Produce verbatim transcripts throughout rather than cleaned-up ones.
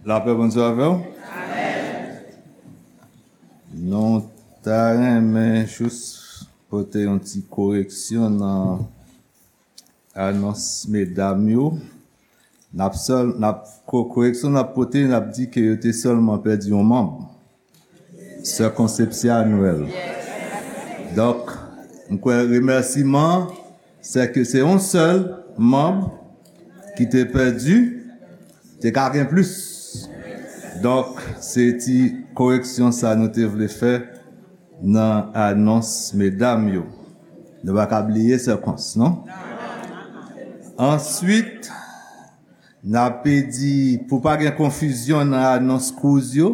Lapè Bondye avè w. Nou ta renmen jis pote yon ti koreksyon nan anons medam yo. N ap sèl, n ap, ko-, koreksyon n ap pote, n ap di ke yo te sèlman pèdi yon manm. Sè Konsepsya Nwèl. Donk, m kwè remèsiman, sè ke se yon sèl manm ki te pèdi, te ka gen plis. Donk, se ti koreksyon sa nou te vle fè nan anons medam yo. Nou pa ka bliye Sè Kons, non? Answit, n ape di, pou pa gen konfizyon nan anons kouz yo,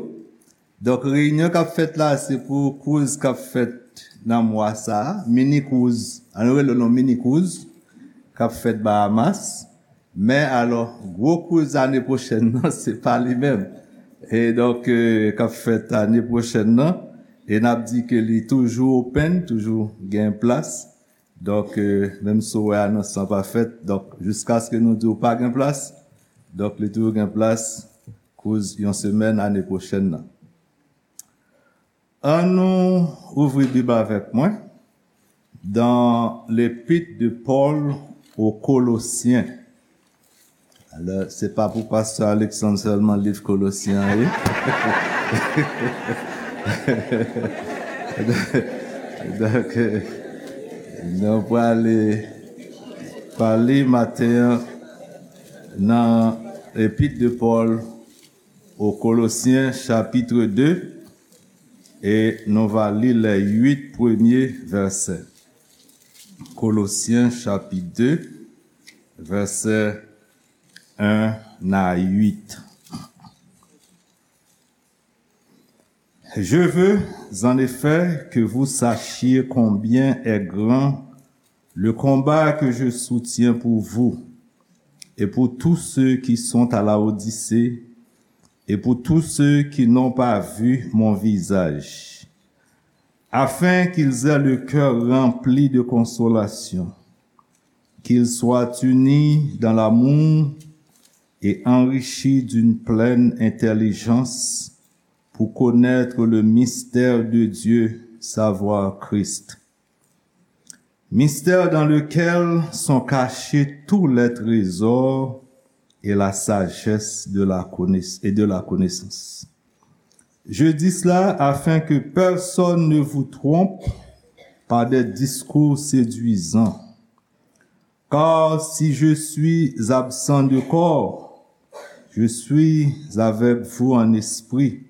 donk, reyinyon k ap fèt la, se pou kouz k ap fèt nan mwa sa a, mini kouz, ann rele l yon mini kouz, k ap fèt Bahamas. Men alò, gwo kouz ane pwochèn nan, se pa li menm. E donk, eh, k ap fèt ane pwochèn nan, e n ap di ke li toujou open, toujou gen plas. Donk, eh, menm si w wè anons lan pa fèt, donk, jiskaske nou di w pa gen plas, donk, li toujou gen plas, kouz yon semèn ane pwochèn nan. An nou ouvri Bib avèk mwen dans l'épître de Paul aux Colossiens. Alò, se pa pou pastè Alexandre sèlman liv Kolosyen an ye. Donk, eh, nou prale pale maten an nan épître de Paul aux Colossiens, chapitre deux, e nou va li les huit premiers versets. Colossiens, chapitre deux, versets un à huit. Je veux, en effet, que vous sachiez combien est grand le combat que je soutiens pour vous et pour tous ceux qui sont à Laodicée et pour tous ceux qui n'ont pas vu mon visage, afin qu'ils aient le cœur rempli de consolation, qu'ils soient unis dans l'amour et enrichis d'une pleine intelligence pour connaître le mystère de Dieu, savoir Christ. Mystère dans lequel sont cachés tous les trésors et la sagesse de la connaiss-, et de la connaissance. Je dis cela afin que personne ne vous trompe par des discours séduisants. Car si je suis absent de corps, je suis avec vous en esprit,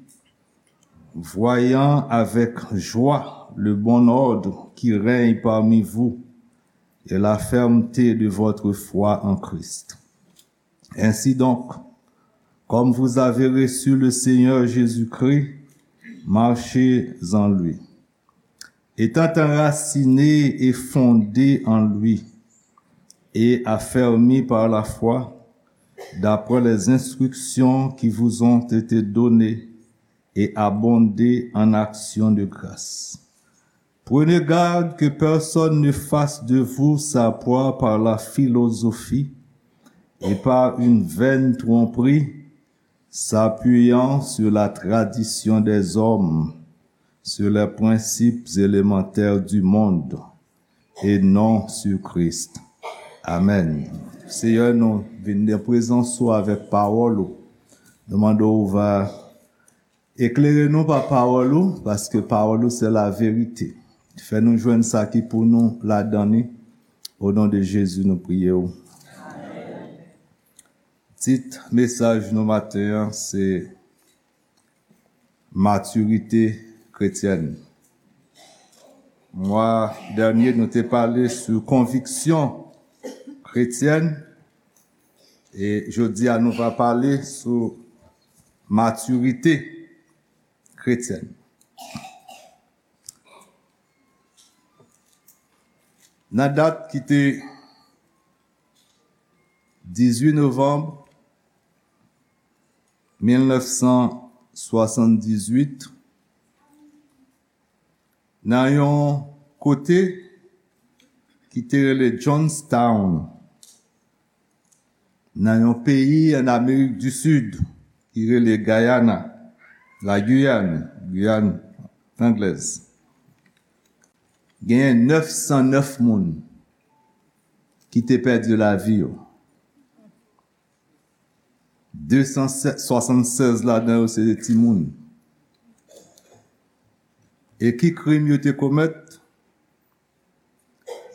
voyant avec joie le bon ordre qui règne parmi vous et la fermeté de votre foi en Christ. Ainsi donc, comme vous avez reçu le Seigneur Jésus-Christ, marchez en lui, étant enracinés et fondés en lui, et affermis par la foi, d'après les instructions qui vous ont été données, et abondez en actions de grâce. Prenez garde que personne ne fasse de vous sa proie par la philosophie et par une vaine tromperie, s'appuyant sur la tradition des hommes, sur les principes élémentaires du monde, et non sur Christ. Amèn. Seyè, nou vin nan prezans ou avèk pawòl ou. Nou mande w va eklere nou pa pawòl ou, paske pawòl ou se la verite. Fè nou jwenn sa ki pou nou ladan li. O non de Jezi, nou priye w. Tit mesaj nou maten an, se matirite kretyèn. Mwa dènye, nou te pale sou konviksyon kretyèn, e jodi a, nou va pale sou matirite kretyèn. Nan dat ki te dizuit novanm mil nèf san swasanndizwit, nan yon kote ki te rele Johnstown, nan yon peyi ann Amerik di Sid, ki rele Guyana, la Guyane, Guyane Anglaise, genyen nèf san nèf moun ki te pèdi lavi yo. De san swasannsèz ladan yo se timoun. E ki krim yo te komèt?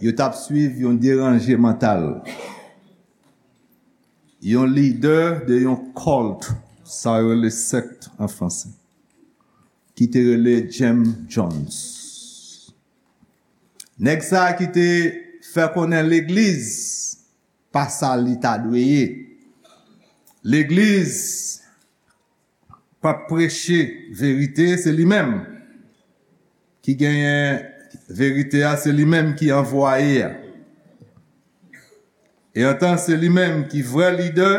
Yo t ap swiv yon deranje mantal, yon lidè de yon cult, sa yo rele sèkt an franse, ki te rele Jim Jones. Nèg sa a ki te fè konnen legliz pa sa li ta dwe ye. Legliz p ap preche verite, se li menm ki genyen verite a, se li menm ki anvwaye a. E antan se li menm ki vrè lidè,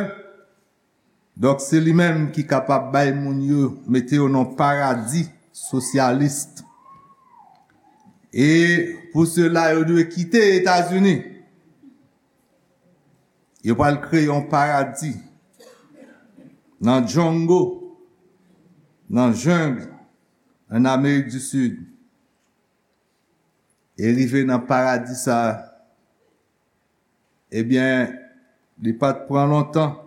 donk se li menm ki kapab bay moun yo, mete yo nan paradi sosyalis. E pou sila yo dwe kite Etazini, yo pral kreye yon paradi nan jungle, nan jungle, an Amerik di Sid. E rive nan paradi sa a, ebyen, li pa t pran lontan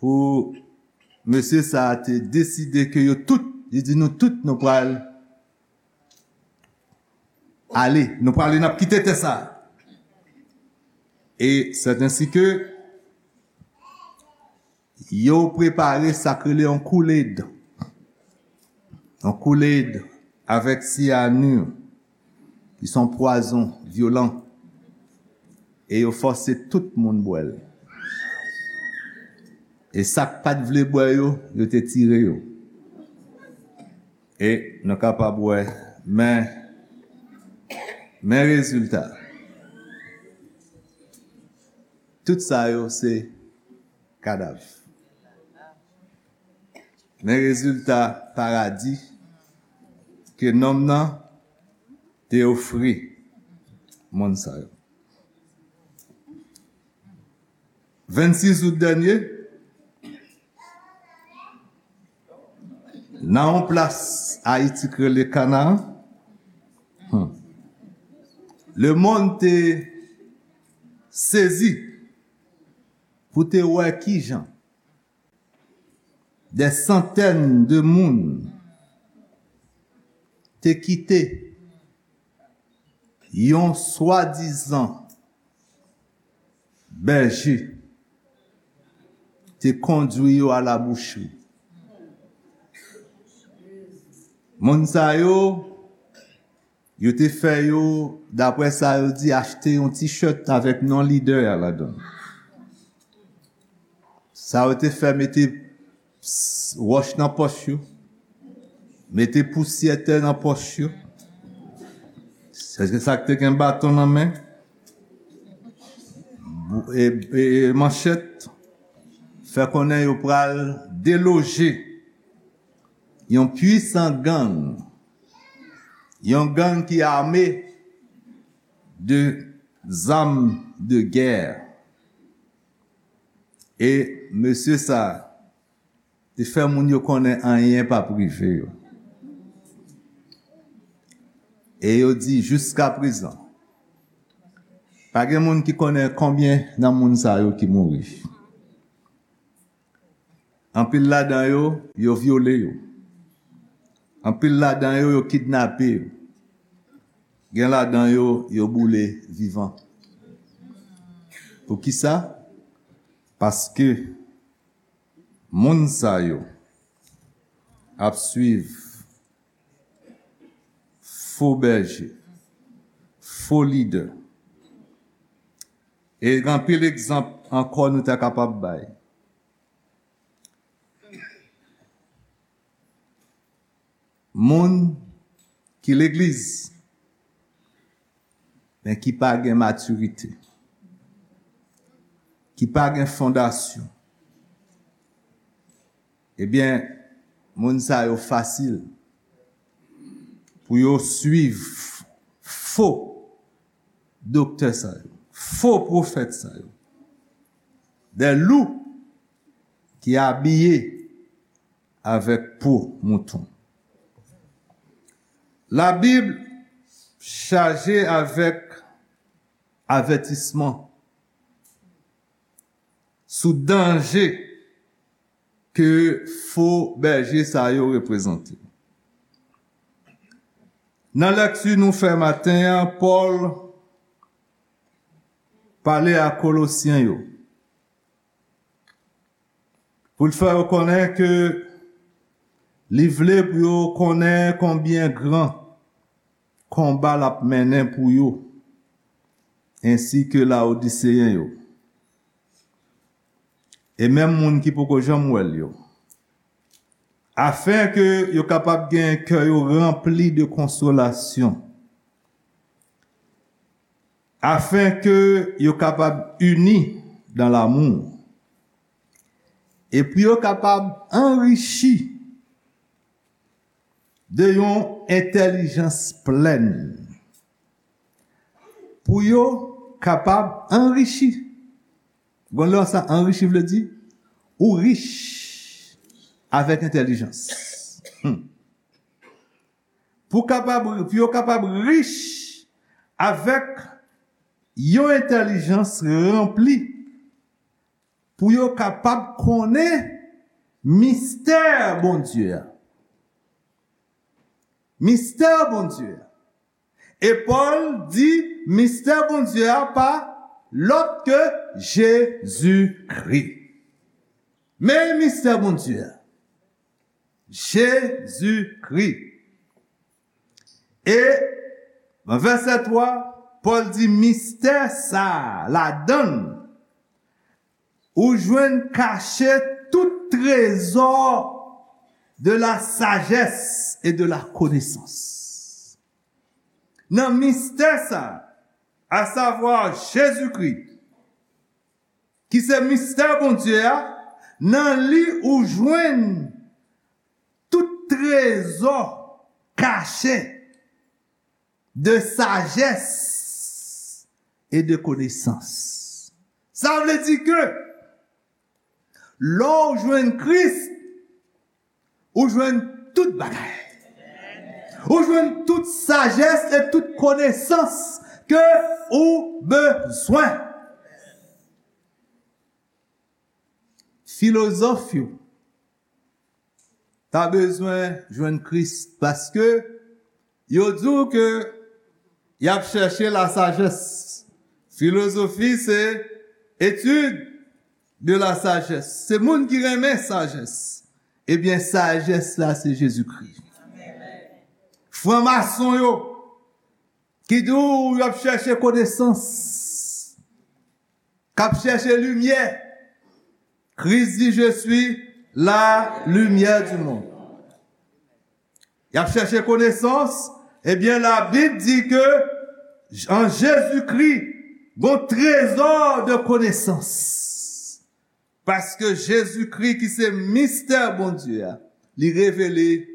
pou mesye sa a te deside ke yo tout, li di, nou tout, nou pral ale, nou prale, n ap kite tè sa a. E sèt ensi ke yo prepare sa k rele yon Kool-Aid. Yon Kool-Aid avèk syanir, ki se yon pwazon vyolan. E yo fòse tout moun bwè l. E sa k pa t vle bwè yo, yo te tire yo. E nou kapab wè, men, men rezilta. Tout sa yo se kadav. Men rezilta paradi ke nonm nan te ofri moun sa yo. Vennsis out dènye, nan yon plas Ayiti k rele Kanaan, hmm, lemonn te sezi pou te wè kijan dè santèn de moun te kite yon swadizan bèje te kondwi yo a la bouchri. Moun sa yo, yo te fè yo, daprè sa yo di, achte yon T-shirt avèk non lidè a ladan l. Sa yo te fè, mete s-, wòch nan pòch yo, mete pousyè tè nan pòch yo. Se sa k te gen baton nan men, bou-, e, e, e manchèt, fè konnen yo pral deloje yon pwisan gang, yon gang ki ame de zam de gè. E mesye sa a te fè moun yo konnen anyen p ap rive yo. E yo di jiskaprezan, pa gen moun ki konnen konbyen nan moun sa yo ki mouri. Anpil ladan yo, yo vyole yo. Anpil ladan yo, yo kidnape yo. Gen ladan yo, yo boule vivan. Poukisa? Paske moun sa yo ap swiv fo bèje, fo lidè. E gen anpil egzanp ankò nou ta kapab bay. Moun ki legliz, men ki pa gen matirite, ki pa gen fondasyon, ebyen, moun sa yo fasil pou yo swiv fo doktè sa yo, fo pwofèt sa yo. Dè lou ki abiye avèk po mouton. Labib chaje avèk avètisman sou danje ke fo bèje sa yo reprezante. Nan lèkti nou fè maten an, Pòl pale a Kolosyen yo pou l fè yo konnen ke li vle pou yo konnen konbyen gran konba l ap mennen pou yo, ensi ke Laodiseyen yo, e menm moun ki poko janm wè l yo, afen ke yo kapab gen kè yo ranpli de konsolasyon, afen ke yo kapab ini dan lamou, e pou yo kapab anrichi de yon entèlijans plèn, pou yo kapab anrichi. Gon lè sa anrichi vle di ou rich avèk entèlijans. Hmm. Pou kapab, pou yo kapab rich avèk yon entèlijans ranpli, pou yo kapab konnen mistè Bondye a. Mistè Bondye a. E Pòl di mistè Bondye a pa lòt ke Jezikri. Men mistè Bondye a. Jezikri. E nan vèsè twa, Pòl di mistè sa a, ladan l, ou jwenn kache tout trezò de la sagesse et de la connaissance. Nan mistè sa a, asavwa Jezikri, ki se mistè Bondye a, nan li ou jwenn tout trezò kache de sajès e de konesans. Sa vle di ke lè w jwenn Kris, ou jwenn tout bagay. Ou jwenn tout sajès e tout konesans ke ou bezwen. Filozòf yo ta bezwen jwenn Kris paske yo di w ke y ap chèche lasajès. Filozofi se etid de lasajès. Se moun ki renmen sajès. Ebyen, sajès la se Jezikri. Franmason yo ki di w y ap chèche konesans, k ap chèche limyè. Kris di, "Je suis la lumière du monde." Y ap chèche konesans, ebyen, Labib di ke an Jezikri, gon trezò de konesans. Paske Jezikri, ki se mistè Bondye a, li revele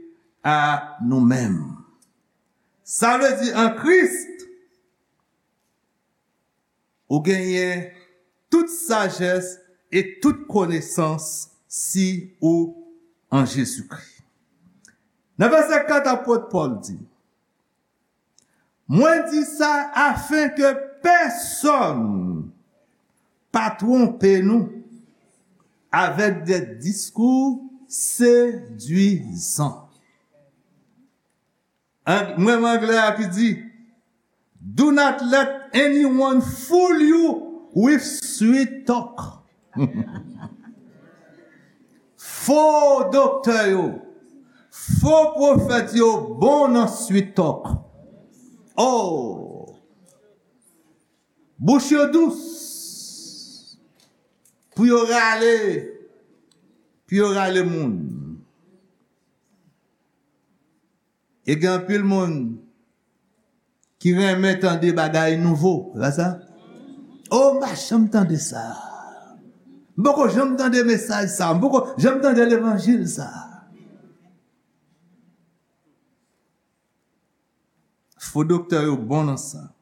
a nou menm. Sa vle di, an Kris, ou genyen tout sajès e tout konesans si ou an Jezikri. Nan vèsè kat, apot Pòl di, "Mwen di sa afen ke pèsonn pa twonpe nou avèk de diskou sedwizan." An, mwen, anglè a ki di, "Do not let anyone fool you with sweet talk." Fo doktè yo, fo pwofèt yo bon nan sweet talk. Oh! Bouch yo dous pou yo rale, pou yo rale moun. E gen anpil moun ki renmen tande bagay nouvo, se pa sa? "Oh, m pa janm tande sa. M poko janm tande mesaj sa. M poko janm tande levanjil sa." Fo doktè yo bon nan sa.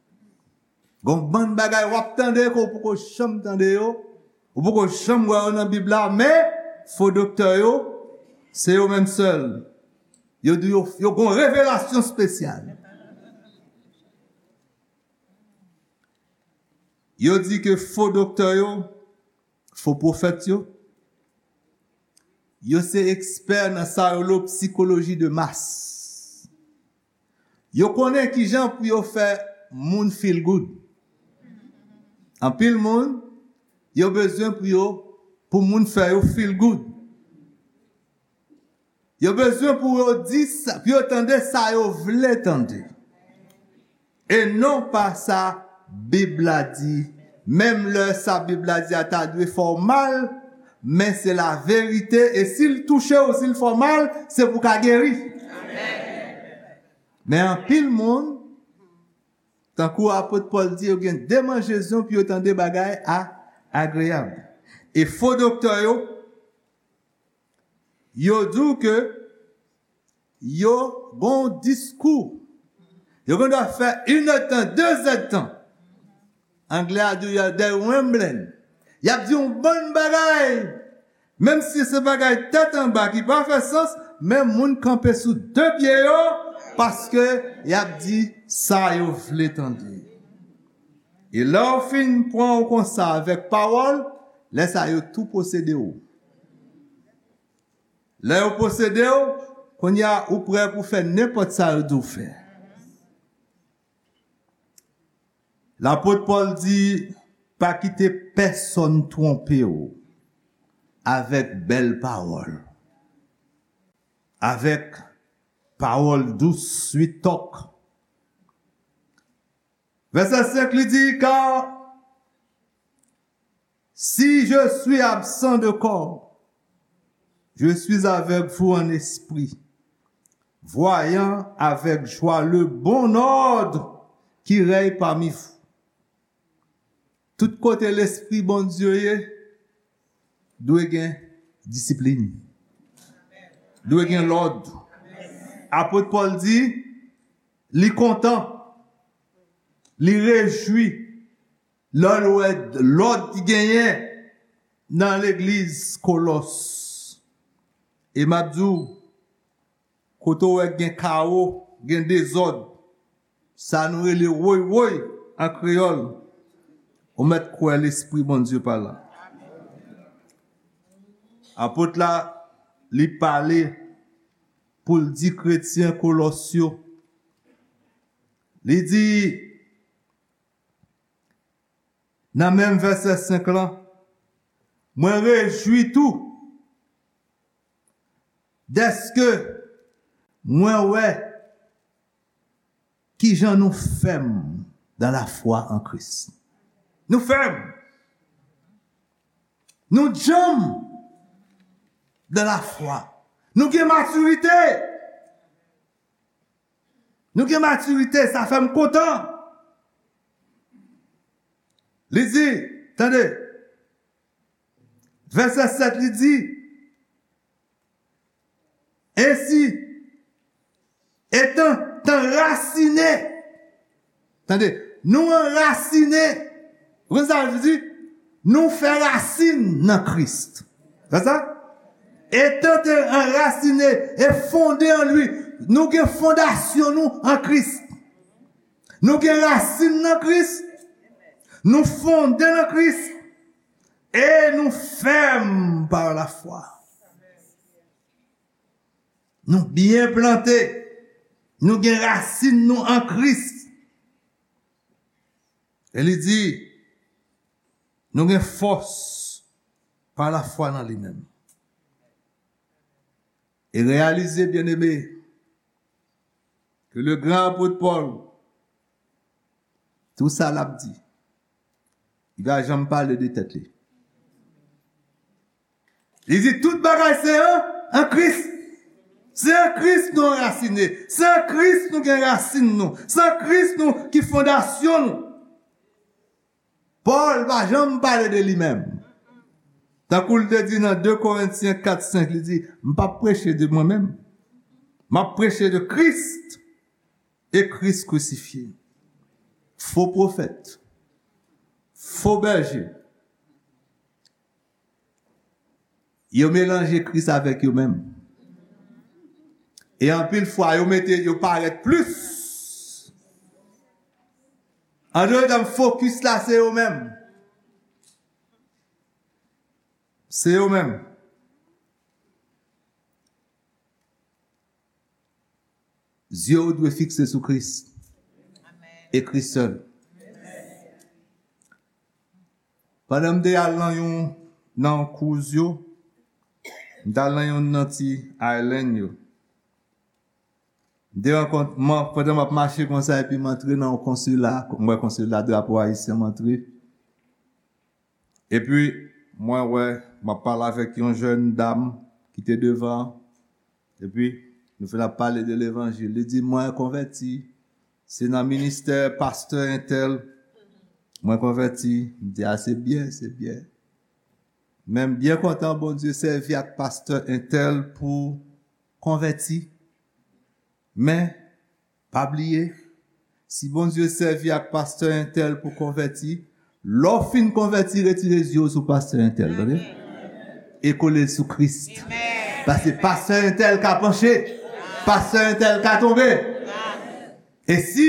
Gon bann bagay w ap tande ke w poko janm tande yo, ou poko janm wè yo nan Bib la, men Fo doktè yo, se yo menm sèl. Yo di yo, yo gon revelasyon espesyal. Yo di ke fo doktè yo, fo pwofèt yo, yo se ekspè nan sa yo rele psikoloji de mas. Yo konnen kijan pou yo fè moun feel good. Anpil moun, yo bezwen pou yo, pou moun fè yo feel good. Yo bezwen pou yo di sa, pou yo tande sa yo vle tande. E non pa sa Bib la di. Menm lè sa Bib la di a ta dwe fè w mal, men se la verite. E si l touche w, si l fè w mal, se pou w ka geri. Men anpil moun, tankou apot Pòl di, yo gen demanjezon pou yo tande bagay a, agreyab. E fo doktè yo, yo di w ke yo gon diskou. Yo gen dwa fè inèdtan, dezèdtan. Anglè a di w, y a, they rambling. Y ap di yon bann bagay. Menm si se bagay tèt anba ki pa fè sans, men moun kanpe sou de pye yo, paske y ap di sa yo vle tande. E lè w fin pran w konsa avèk pawòl, lè sa yo tou posede w. Lè yo posede w, kounye a ou prè pou fè nenpòt sa yo di w fè. Lapot Pòl di, pa kite pèsonn twonpe w avèk bèl pawòl, avèk pawòl dous, sweet talk. Vèsè senk li di, car si je suis absent de corps, je suis avec vous en esprit, voyant avec joie le bon ordre qui règne parmi vous. Tout kote Lespri Bondye ye, dwe gen disiplin. Dwe gen lòd. Apot Pòl di, li kontan, li rejwi lè l wè lòd ki genyen nan legliz Kolòs. E m ap di w, kote w wè gen kawo, gen dezòd, sa nou rele woy woy an kreyòl, ou mèt kwè Lespri Bondye pa la. Apot la, li pale pou l di kretyen Kolòs yo, li di, nan menm vèsè senk lan, mwen rejwi tou dèske mwen wè kijan nou fèm dans la foi en Christ. Nou fèm. Nou djanm dans la foi. Nou gen matirite. Nou gen matirite, sa fè m kontan. Li di, tande, vèsè sèt, li di, ensi, etan anrasine, tande, nou anrasine, ou konn sa l di? Nou fè rasin nan Kris. Sa sa? Etan te anrasine e fonde an li. Nou gen fondasyon nou an Kris. Nou gen rasin nan Kris. Nou fonde nan Kris. E nou fèm pa lafwa. Nou byen plante. Nou gen rasin nou an Kris. E li di, nou gen fòs pa lafwa nan li menm. E reyalize, byeneme, ke le gran apot Pòl, tou sa l ap di, li pa janm pale de tèt li. Li di tout bagay se an, an Kris. Se an Kris nou anrasine. Se an Kris nou gen rasin nou. Se an Kris nou ki fondasyon nou. Pòl pa janm pale de li menm. Tankou l te di nan de Korentyen kat senk, li di, m p ap preche de mwen menm. M ap preche de Kris e Kris krisifye. Fo pwofèt. Fo bèje. Yo melanje Kris avèk yo menm. E anpil fwa, yo mete, yo parèt plis. An dòt tèm, fokis la, se yo menm. Se yo menm. Zye w dwe fikse sou Kris. E Kris sèl. Pandan m te al nan yon, nan cruise yo, m t al nan yon nan ti island yo. M te rankont-, mwen, pandan m ap mache konsa, epi m antre nan yon konsila, m wè konsila, drapo ayisyen, m antre. Epi, mwen wè, m ap pale avèk yon jèn dam ki te devan, epi, nou fin ap pale de levanjil. Li di, "Mwen konvèti, se nan ministè pastè entèl, mwen konvèti." M di, "A, se byen, se byen." Men m byen kontan Bondye sèvi ak pastè entèl pou konvèti. Men, pa bliye, si Bondye sèvi ak pastè entèl pou konvèti, lè w fin konvèti, retire zye w sou pastè entèl, tande? E kole l sou Kris. Paske pastè entèl ka panche, pastè entèl ka tonbe. E si,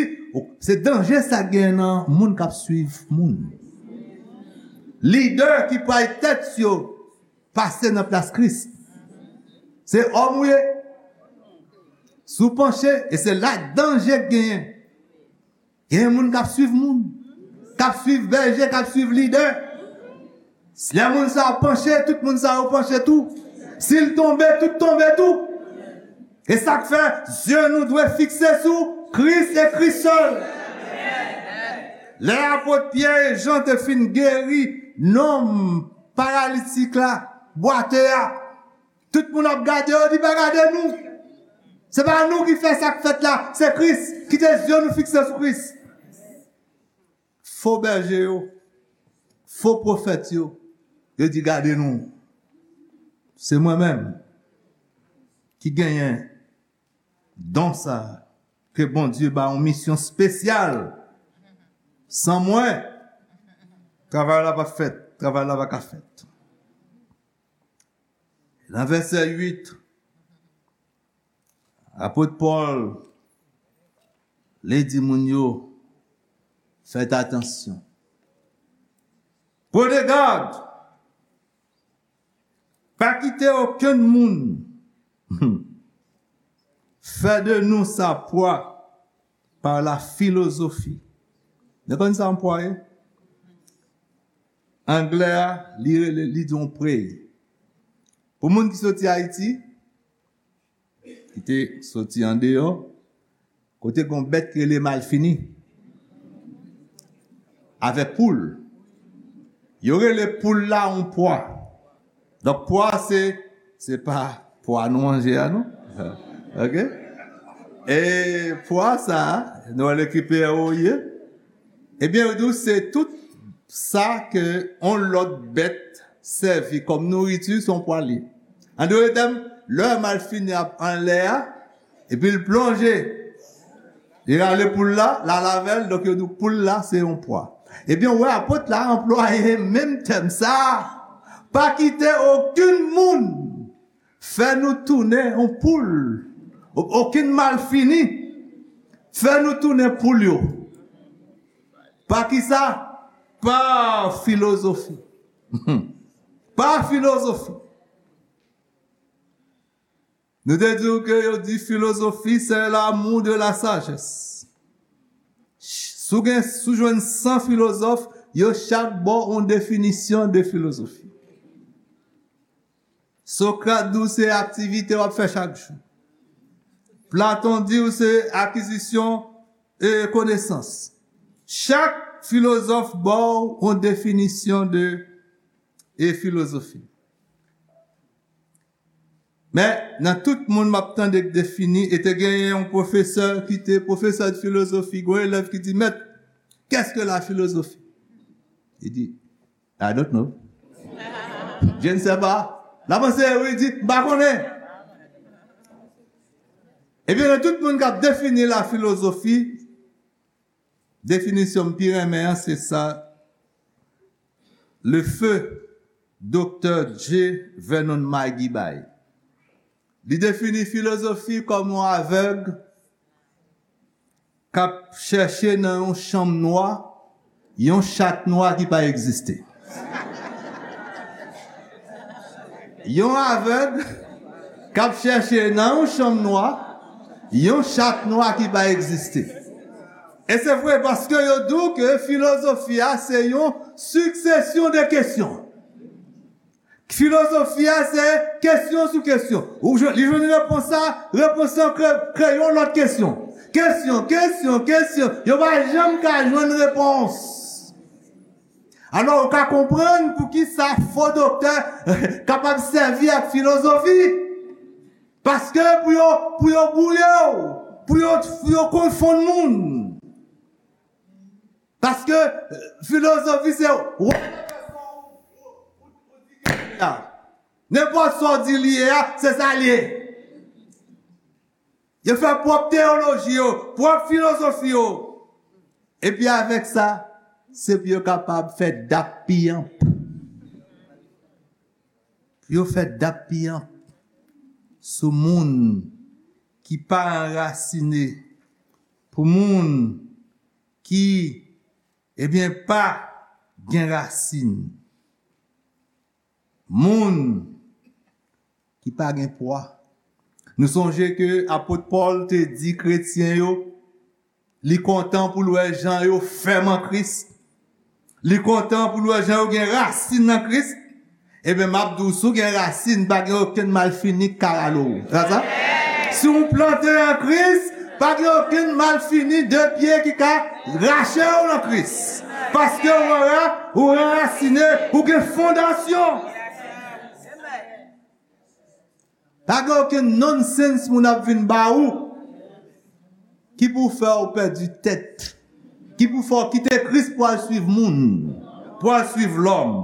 se danje sa gen nan moun k ap swiv moun. Lidè ki pral tèt yo pase nan plas Kris. Se òm ou ye. Si w panche, e se la danje k genyen. Gen moun k ap swiv moun, k ap swiv bèje, k ap swiv lidè. Lè moun sa yo panche, tout moun sa yo panche tou. Si l tonbe, tout tonbe tou. E sa k fè, zye nou dwe fikse sou Kris e Kris sèl. Lè apot Pyè e Jan te fin geri nonm paralitik la, bwate a, tout moun ap gade yo, di, "Pa gade nou. Se pa nou ki fè sa k fèt la, se Kris." Kite zye nou fikse sou Kris. Fo bèje yo, fo pwofèt yo, yo di, "Gade nou. Se mwen menm ki genyen don sa a, ke Bondye ba yon misyon espesyal. San mwen, travay la p ap fèt, travay la pa ka fèt." Nan vèsè uit, apot Pòl, li di moun yo, "Fèt atansyon. Prenez garde. Pa kite okenn moun fè de nou sa pwa par la philosophie." Nou konn sa yon pwa ye? Anglè a, li rele, li di yon prey. Pou moun ki soti Ayiti, ki te soti andeyò, kote gen yon bèt ki rele malfini, avèk poul. Yo rele poul la yon pwa. Donk, pwa se, se pa pwa nou manje a, non? Ok? E pwa sa, nou wè le ki P R O ye? Ebyen, yo di w se tout sa ke yon lòt bèt sèvi kòm nouriti, se yon pwa li. An dòt tèm, lè malfini ap anlè a, epi l plonje, li rale poul la, l al avè l, donk yo di w poul la, se yon pwa. Ebyen, w wè apot la anplwaye menm tèm sa a. Pa kite okenn moun fè nou tounen yon poul. O-, okenn malfini fè nou tounen poul yo. Pa kisa? Pa filozofi. Pa filozofi. Nou te di w ke yo di filozofi, c'est l'amour de la sagesse. Si w gen, si w jwenn san filozòf, yo chak ba w yon definisyon de filozofi. Sokrat di w se aktivite w ap fè chak jou. Platon di w se akizisyon e konesans. Chak filozòf ba w yon definisyon de e filozofi. Men, nan tout moun m ap tande k defini, e te genyen yon pwofesè ki te pwofesè de filozofi, gen yon elèv ki di, "Mèt, qu'est-ce que la philosophie?" Li di, "I don't know." Je ne sais pas. L ap anseyi, wi, di, "M pa konnen." Ebyen, nan tout moun k ap defini la filozofi, definisyon m pi renmen an, se sa, le feu Doktè J. Vernon McGee bay. Li defini filozofi kòm yon avèg k ap chèche nan yon chanm nwa yon chat nwa ki pa egziste. Yon avèg k ap chèche nan yon chanm nwa yon chat nwa ki pa egziste. E se vre, paske yo di w ke filozofi a se yon siksesyon de kesyon. Filozofi a se kesyon sou kesyon. Ou jwenn, li jwenn repons la, repons lan kre-, kreye yon lòt kesyon. Kesyon, kesyon, kesyon. Yo pa janm ka jwenn repons. Alò, ou ka konprann poukisa fo doktè kapab sèvi ak filozofi. Paske pou yo, pou yo bwouye w, pou yo, pou yo konfonn moun. Paske, eh, filozofi se wè nenpòt sa w di li ye a, se sa l ye. Yo fè pwòp teyoloji yo, pwòp filozofi yo. Epi avèk sa, se pou yo kapab fè dap piyanp. Pou yo fè dap piyanp sou moun ki pa anrasine, pou moun ki, ebyen, pa gen rasin. Moun ki pa gen pwa. Nou sonje ke apot Pòl te di kretyen yo, li kontan pou l wè jan yo fèm an Kris. Li kontan pou l wè jan yo gen rasin nan Kris. Ebyen, m ap di w, si w gen rasin, pa gen okenn malfini k ka rale w. Sa sa? Si w plante an Kris, pa gen okenn malfini de pye ki ka rache w nan Kris. Paske ou anra-, ou anrasine, ou gen fondasyon. Pa gen okenn nonsens moun ap vin ba ou ki pou fè w pèdi tèt, ki pou fè w kite Kris pou al swiv moun, pou al swiv lòm.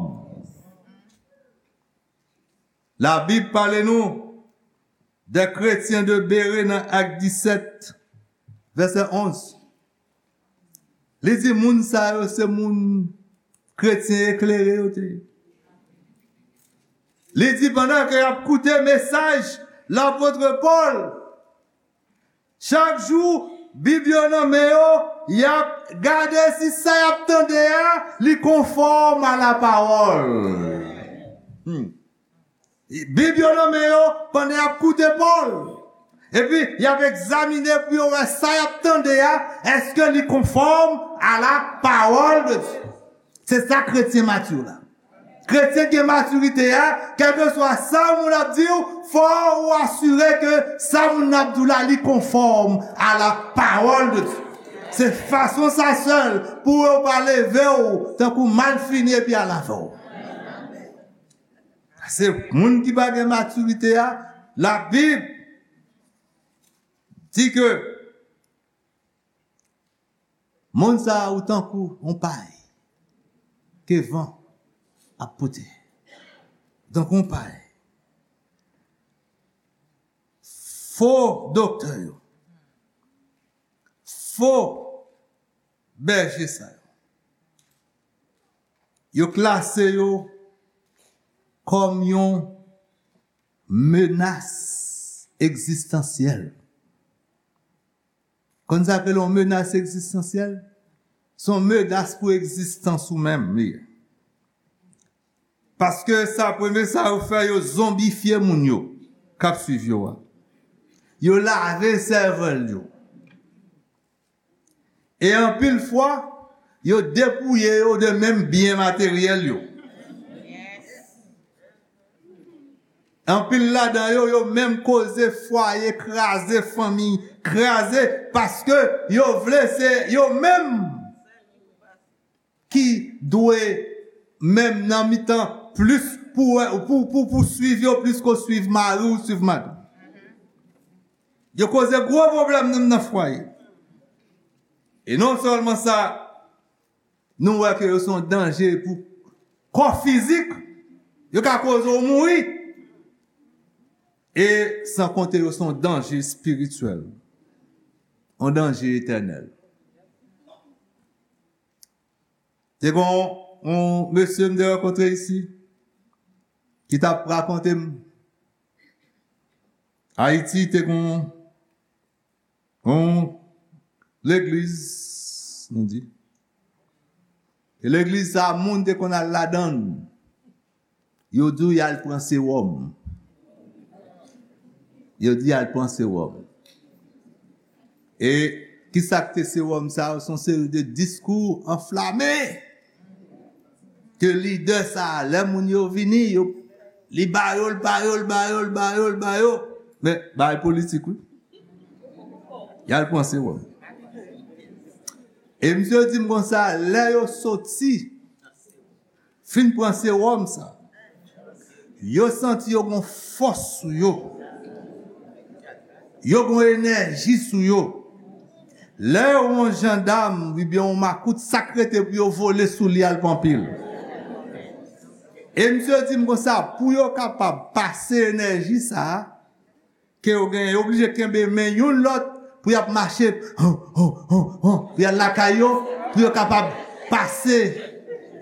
Labib pale nou de kretyen de Bere nan Ak disèt, vèsè onz. Li di moun sa yo se moun kretyen eklere yo te ye. Li di pandan ke y ap koute mesaj lapot Pòl, chak jou, Bib yo nan men yo, y ap gade si sa y ap tande a, li konfòm a la pawòl. Hmm. Bib yo nan men yo pandan y ap koute Pòl. Epi, y ap egzamine pou yo wè sa y ap tande a, èske li konfòm a la pawòl de Dye. Se sa kretyen mati la. Kretyen gen matirite a, kèlkeswa sa moun ap di w, fò ou asire ke sa moun nan ap di w la, li konfòm a la pawòl de Dye. Se fason sa sèl pou yo pa leve w tankou malfini epi al avè w. Se moun ki pa gen matirite a, Labib di ke moun sa a ou tankou yon pay ke van ap pote. Tankou yon pay. Fo doktè yo, fo bèje sa yo, yo klase yo kòm yon menas egzistansyèl. Konn sa k rele yon menas egzistansyèl? Se yon menas pou egzistans ou menm, li ye. Paske sa, premye sa yo fè, yo zonbifye moun yo k ap swiv yo a. Yo lave sèvèl yo. E anpil fwa, yo depouye yo de menm byen materyèl yo. Anpil ladan yo, yo menm koze fwaye kraze, fanmi kraze, paske yo vle se yo menm ki dwe menm nan mitan plis pou, pou, pou, pou swiv yo plis ke w swiv mari w, swiv madanm. Yo koze gwo pwoblèm menm nan fwaye. E non sèlman sa, nou wè ke yo se yon danje pou kò fizik, yo ka koze w mouri. E san konte yo se yon danje espirityèl, yon danje etènèl. Te gen yon, yon mesye m te rankontre isi, ki t ap rakonte m Ayiti te gon yon legliz, nou di. E legliz sa, moun te konn al ladan l. Yo di w y al pran sewòm. Yo di y al pran sewòm. E kisa k te sewòm sa yo? Se yon seri de diskou anflame ke lidè sa a, lè moun yo vini, yo, li ba yo, l ba yo, l ba yo, l ba yo, l ba yo. Men, bagay politik, wi. Y al pran sewòm. E misye di m konsa, lè yo soti, fin pran sewòm sa, yo santi yo gon fòs sou yo. Yo gon enèji sou yo. Lè yo wè yon jandam oubyen yon makout, sa k rete pou yo vole sou li al pran pil. E misye di m konsa, pou yo kapab pase enèji sa a, ke yo genyen, yo oblije kenbe men youn lòt pou y ap mache, hon, hon, hon, hon, pou y al lakay yo, pou yo kapab pase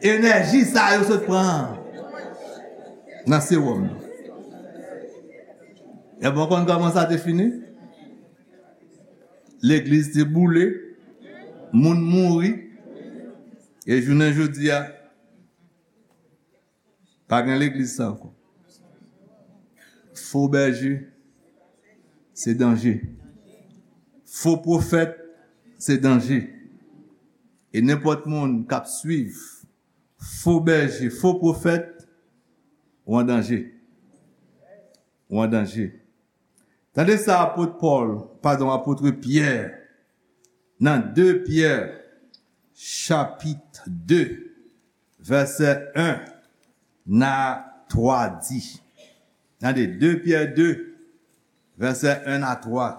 enèji sa yo sot pran an nan sewòm nan. Epi w konn kòman sa te fini? Legliz te boule, moun mouri, e jounen jodi a, pa gen legliz sa ankò. Fo bèje, se danje. Fo pwofèt, se danje. E nenpòt moun k ap swiv fo bèje, fo pwofèt, ou an danje. Ou an danje. Tande sa apot Pòl, padon, apot Pyè, nan de Pyè, chapit de, vèsè en a twa di. Tande, de Pyè de, vèsè en a twa.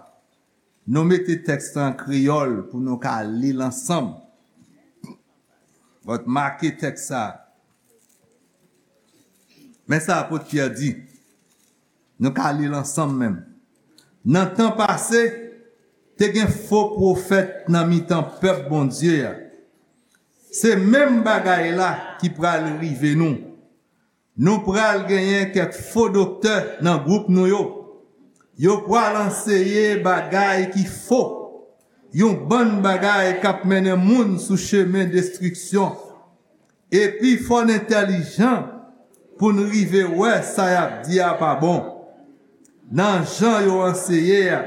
Nou mete tèks la an kreyòl pou nou ka li l ansanm. But make tèks sa. Men sa apot Pyè di. Nou ka li l ansanm menm. Nan tan pase, te gen fo pwofèt nan mitan pèp Bondye a. Se menm bagay la ki pral rive nou. Nou pral genyen kèk fo doktè nan gwoup nou yo. Yo pral anseye bagay ki fo, yon bann bagay k ap mennen moun sou chemen destriksyon. Epi fò n entèlijan pou n rive wè sa y ap di a pa bon. Nan jan yo anseye a,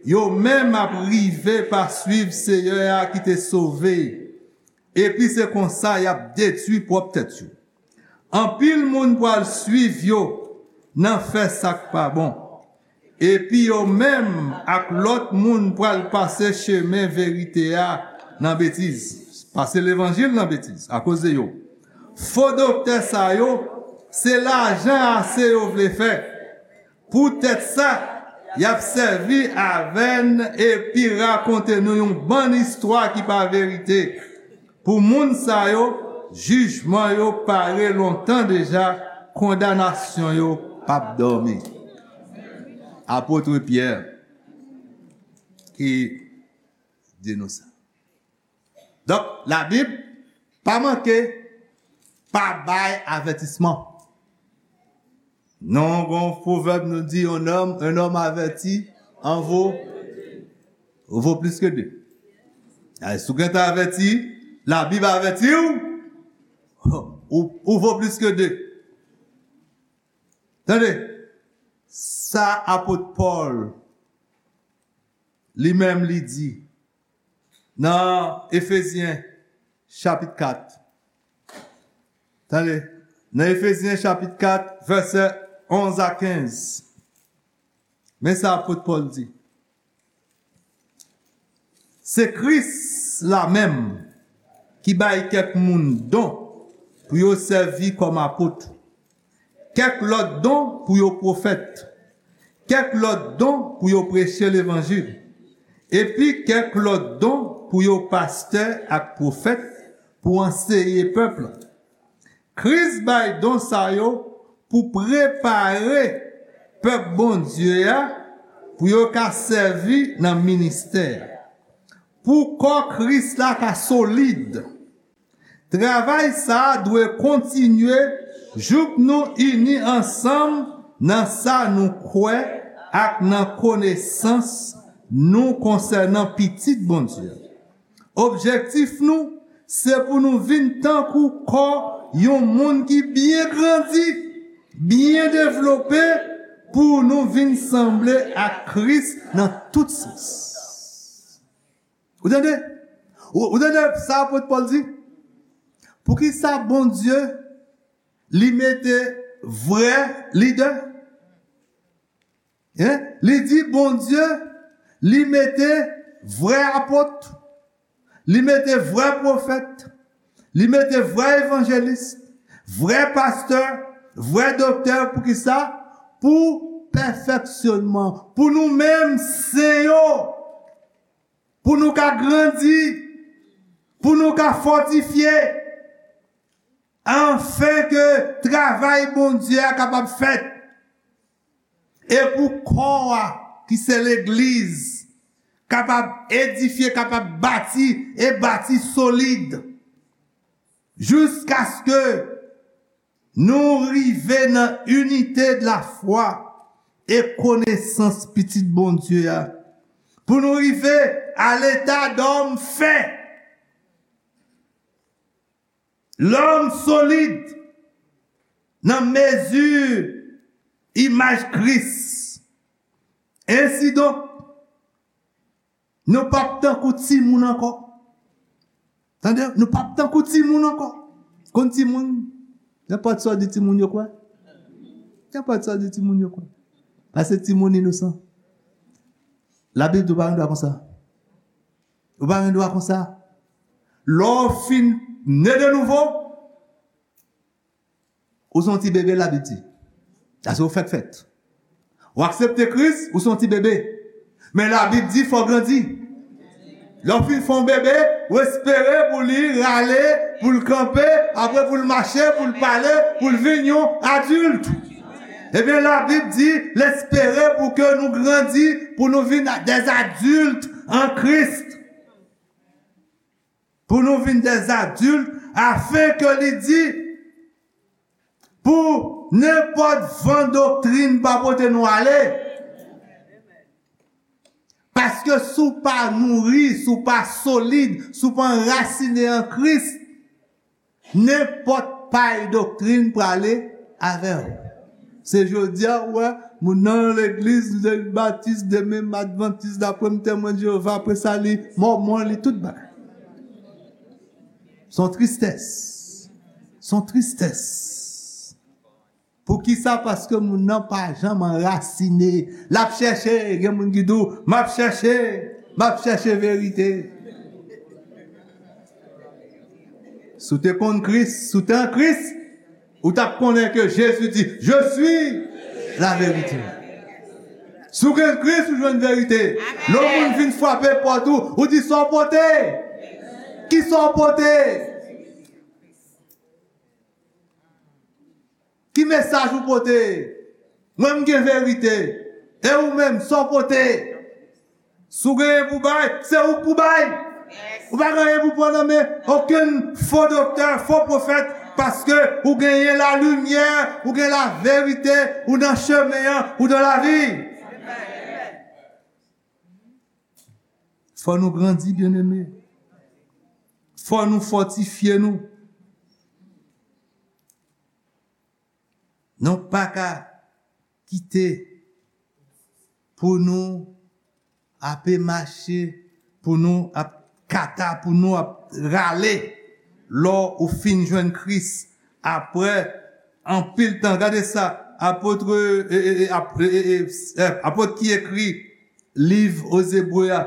yo menm ap rive pa swiv Seyè a ki te sove, epi se konsa y ap detwi pwòp tèt yo. Anpil moun pral swiv yo nan fè sa k pa bon, epi yo menm ak lòt moun pral pase chemen verite a nan betiz, pase levanjil nan betiz akoz de yo. Fo doktè sa yo, se lajan ase yo vle fè. Poutèt sa, y ap sèvi avè n epi rakonte nou yon bann istwa ki pa verite. Pou moun sa yo, jijman yo pare lontan deja, kondanasyon yo p ap dòmi. Apot Pyè ki di nou sa. Donk, Labib pa manke pa bay avètisman. Non, gon pwovèb nou di, un homme, un homme averti en vaut, vaut plus que deux. Ay, si w gentan avèti, Labib avèti w, ou, ou vo plis ke de. Tande, sa apot Pòl, li menm, li di, nan Efezyen chapit kat. Tande, nan Efezyen chapit kat, vèsè onz a kenz. Men sa apot Pòl di. Se Kris la menm ki bay kèk moun don pou yo sèvi kòm apot, kèk lòt don pou yo pwofèt, kèk lòt don pou yo preche levanjil, epi kèk lòt don pou yo pastè ak pwofèt pou anseye pèp la. Kris bay don sa yo pou prepare pèp Bondye a pou yo ka sèvi nan ministè a. Pou kò Kris la ka solid, travay sa a dwe kontinye Jouk nou ini ansanm nan sa nou kwè ak nan konesans nou konsènan Pitit Bondye. Objektif nou, se pou nou vin tankou kò yon moun ki byen grandi, byen devlope, pou nou vin sanble ak Kris nan tout sans. Ou tande? Ou, ou tande sa apot Pòl di? Poukisa Bondye li mete vrè lidè? Hein? Li di Bondye li mete vrè apot, li mete vrè pwofèt, li mete vrè evanjelis, vrè pastè, vrè doktè. Poukisa? Pou pèfeksyonman, pou nou menm sen yo, pou nou ka grandi, pou nou ka fòtifye, anfen ke travay Bondye a kapab fèt, e pou kò a, ki se legliz, kapab edifye, kapab bati, e bati solid, jiskaske nou rive nan inite de la fwa e konesans Pitit Bondye a, pou nou rive a leta dòm fè, lòm solid, nan mezi imaj Kris. Ensidonk, nou p ap tankou timoun ankò. Tande, nou p ap tankou timoun ankò. Konn timoun, nenpòt sa w di timoun yo kwè. Nenpòt sa w di timoun yo kwè. Paske timoun inosan. Labib di w pa gen dwa konsa. Ou pa gen dwa konsa. Lè w fin ne de nouvo, ou se yon ti bebe, Labib di. Sa se ou fèk fèt. Ou aksepte Kris, ou se yon ti bebe. Men Labib di fò w grandi. Lè w fin fè yon bebe, ou espere pou li rale, pou l kanpe, apre pou l mache, pou l pale, pou l vin yon adilt. Ebyen, Labib di l espere pou ke nou grandi, pou nou vin des adultes en Christ. Pou nou vin des adultes, afin ke li di, pou nenpòt van doktrin pa pote nou ale. Paske si w pa nouri, si w pa solid, si w pa anrasine an Kris, nenpòt pay doktrin prale avè w. Se jodi a, ou wè, moun nan legliz, demen batis, demen advantis, demen temwen Jewova, apre sa, li mòmon, li tout bagay. Se yon tristès. Se yon tristès. Poukisa? Paske moun nan pa janm anrasine. L ap chèche, gen moun ki di w, "M ap chèche, m ap chèche verite." Si w te konn Kris, si w te an Kris, ou t ap konnen ke Jezi di, "Je suis la vérité." Si w gen Kris, ou jwenn verite. Lè yon moun vin frape pòt ou, ou di, "Sa w pote?" Ki sa w pote? Ki mesaj ou pote? Mwen, m gen verite. E ou menm, sa w pote? Si w gen anyen pou bay, se ou k pou bay. Ou pa gen anyen pou pran nan men okenn fo doktè, fo pwofèt, paske ou genyen lalimyè, ou gen laverite, ou nan chemen an, ou nan lavi. Fò nou grandi, byeneme. Fò nou fòtifye nou. Nou pa ka kite pou nou ape mache, pou nou ap kata, pou nou ap rale. Lè ou fin jwenn Kris, apre anpil tan, gade sa, apot, e, e, e, ap-, e, e, e, e, apot ki ekri liv Ebre a,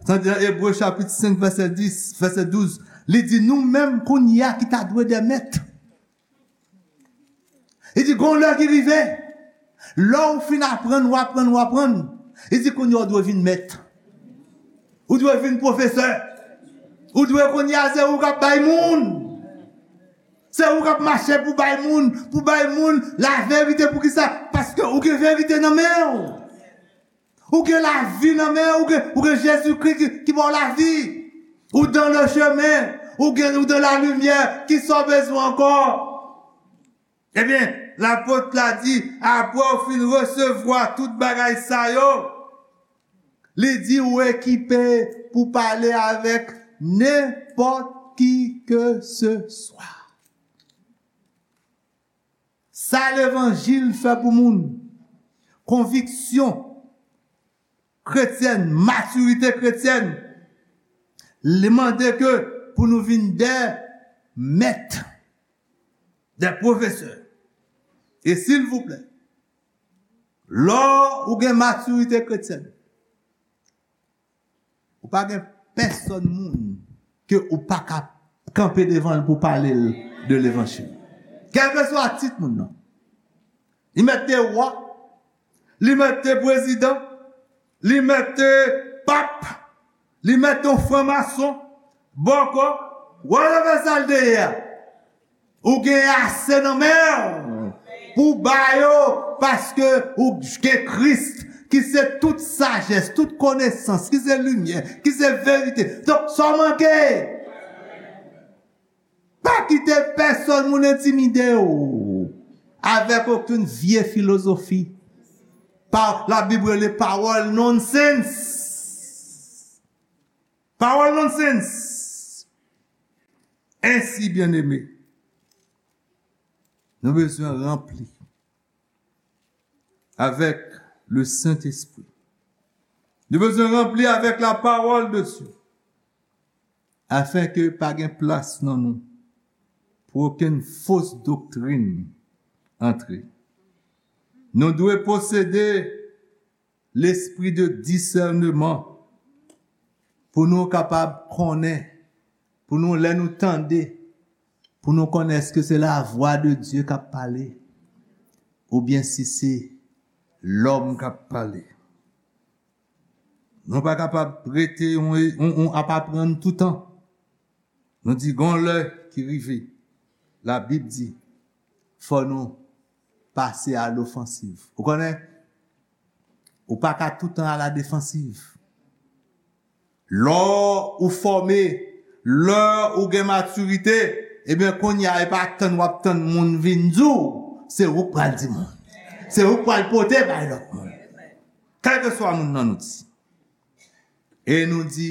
tande nan Ebre chapit senk, vèsè dis, vèsè douz, li di, "Nou menm kounye a ki ta dwe de mèt." Li di, "Gon lè ki rive, lè w fin aprann, w aprann, w aprann." Li di, "Kounye a w dwe vin mèt. Ou dwe vin pwofesè. Ou dwe kounye a se ou k ap bay moun. Se ou k ap mache pou bay moun, pou bay moun laverite." Poukisa? Paske ou gen verite nan men w. Ou gen lavi nan men w, ou gen, ou gen Jezikri ki, ki ba w lavi. Ou dans le chemin, ou gen, ou dans la lumière, ki sa w bezwen ankò? Ebyen, lapot la di, apre w fin resevwa tout bagay sa yo, li di ou ekipe pou pale avèk nenpòt ki ke se swa. Sa levanjil fè pou moun, konviksyon kretyèn, matirite kretyèn, li mande ke pou nou vin de mèt, de pwofesè. E silvouplè, lè ou gen matirite kretyèn, ou pa gen pèsonn moun ke ou pa ka kanpe devan l pou pale l de levanjil. Kèlkeswa tit moun nan. Li mèt te wa, li mèt te prezidan, li mèt te pap, li mèt te yon franmason, bòkò, whatever sa l te ye a. Ou gen ase nan men w pou ba yo, paske ou gen Kris, ki se tout sajès, tout konesans, ki se limyè, ki se verite. Donk, sa w manke, pa kite pèsonn moun entimide w avèk okenn vye filozofi. Pa, Labib rele pawòl nonsense. Pawòl nonsense. Ensi, byeneme, nou bezwen ranpli avèk le Sentespri. Nou bezwen ranpli avèk la parole de Dieu. Afenke pa gen plas nan nou pou okenn fos doktrin antre. Nou dwe posede lespri de disèneman pou nou kapab konnen, pou nou, lè nou tande, pou nou konnen èske se lavwa de Dye k ap pale oubyen si se lòm k ap pale. Nou pa kapab rete yon, yon, yon ap aprann toutan. Nou di gon lè ki rive. Labib di, fò nou pase a lofansiv. Ou konnen, ou pa ka toutan a la defansiv. Lè ou fòme, lè ou gen matirite, ebyen, kounye a, e pa tann w ap tann moun vin di w, se ou k pral di moun. Se ou k pral pote bay lòt moun. Kèlkeswa moun nan nou di. E nou di,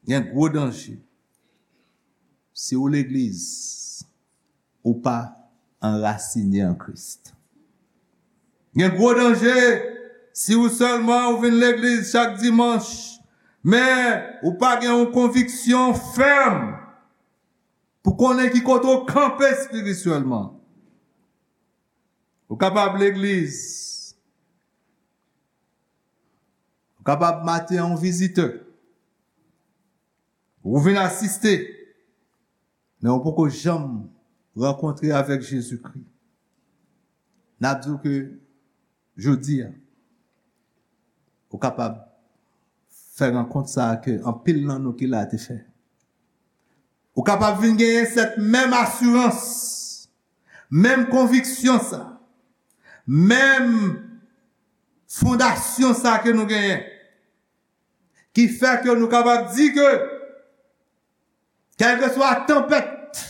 gen gwo danje. Si ou legliz, ou pa anrasine an Kris. Gen gwo danje si ou sèlman ou vin legliz chak dimanch, men ou pa gen yon konviksyon fèm pou konnen ki kote ou kanpe espirityèlman. Ou kapab legliz, ou kapab maten an yon vizitè. Ou vin asiste, men ou poko janm rankontre avèk Jezikri. N ap di w ke jodi a, ou kapab fè rankont sa a ke anpil nan nou ki la te fè. Ou kapab vin genyen sèt menm asirans, menm konviksyon sa, menm fondasyon sa ke nou genyen, ki fè ke nou kapab di ke kèlkeswa tanpèt,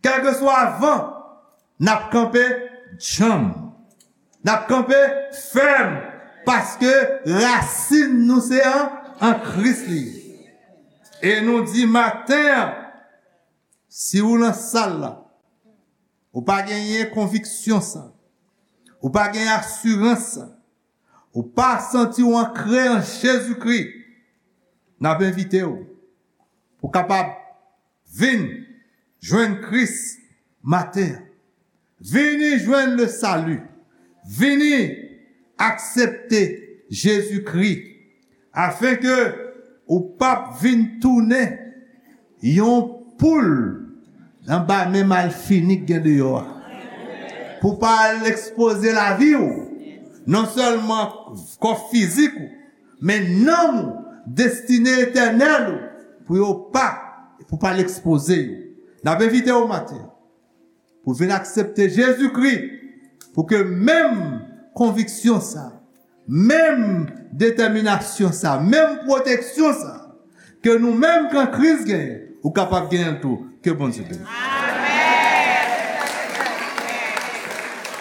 kèlkeswa van, n ap kanpe djanm. N ap kanpe fèm, paske rasin nou se an, an Kris li ye. E nou di maten an, si ou nan sal la, ou pa genyen konviksyon sa, ou pa genyen asirans sa, ou pa santi w ankre an Jezikri, n ap envite w pou kapab vin jwenn Kris maten an. Vini jwenn le salut. Vini aksepte Jezikri, afenke ou p ap vin tounen yon poul anba men malfini k gen deyò a. Pou pa al ekspoze lavi w, non sèlman kò fizik ou, men nanm ou, destine etènèl ou, pou yo pa, pou pa al ekspoze yo. N ap envite w maten an pou vin aksepte Jezikri, pou ke menm konviksyon sa, menm detèminasyon sa, menm pwoteksyon sa, ke nou menm ke Kris genyen, ou kapab genyen l tou. Ke Bondye beni.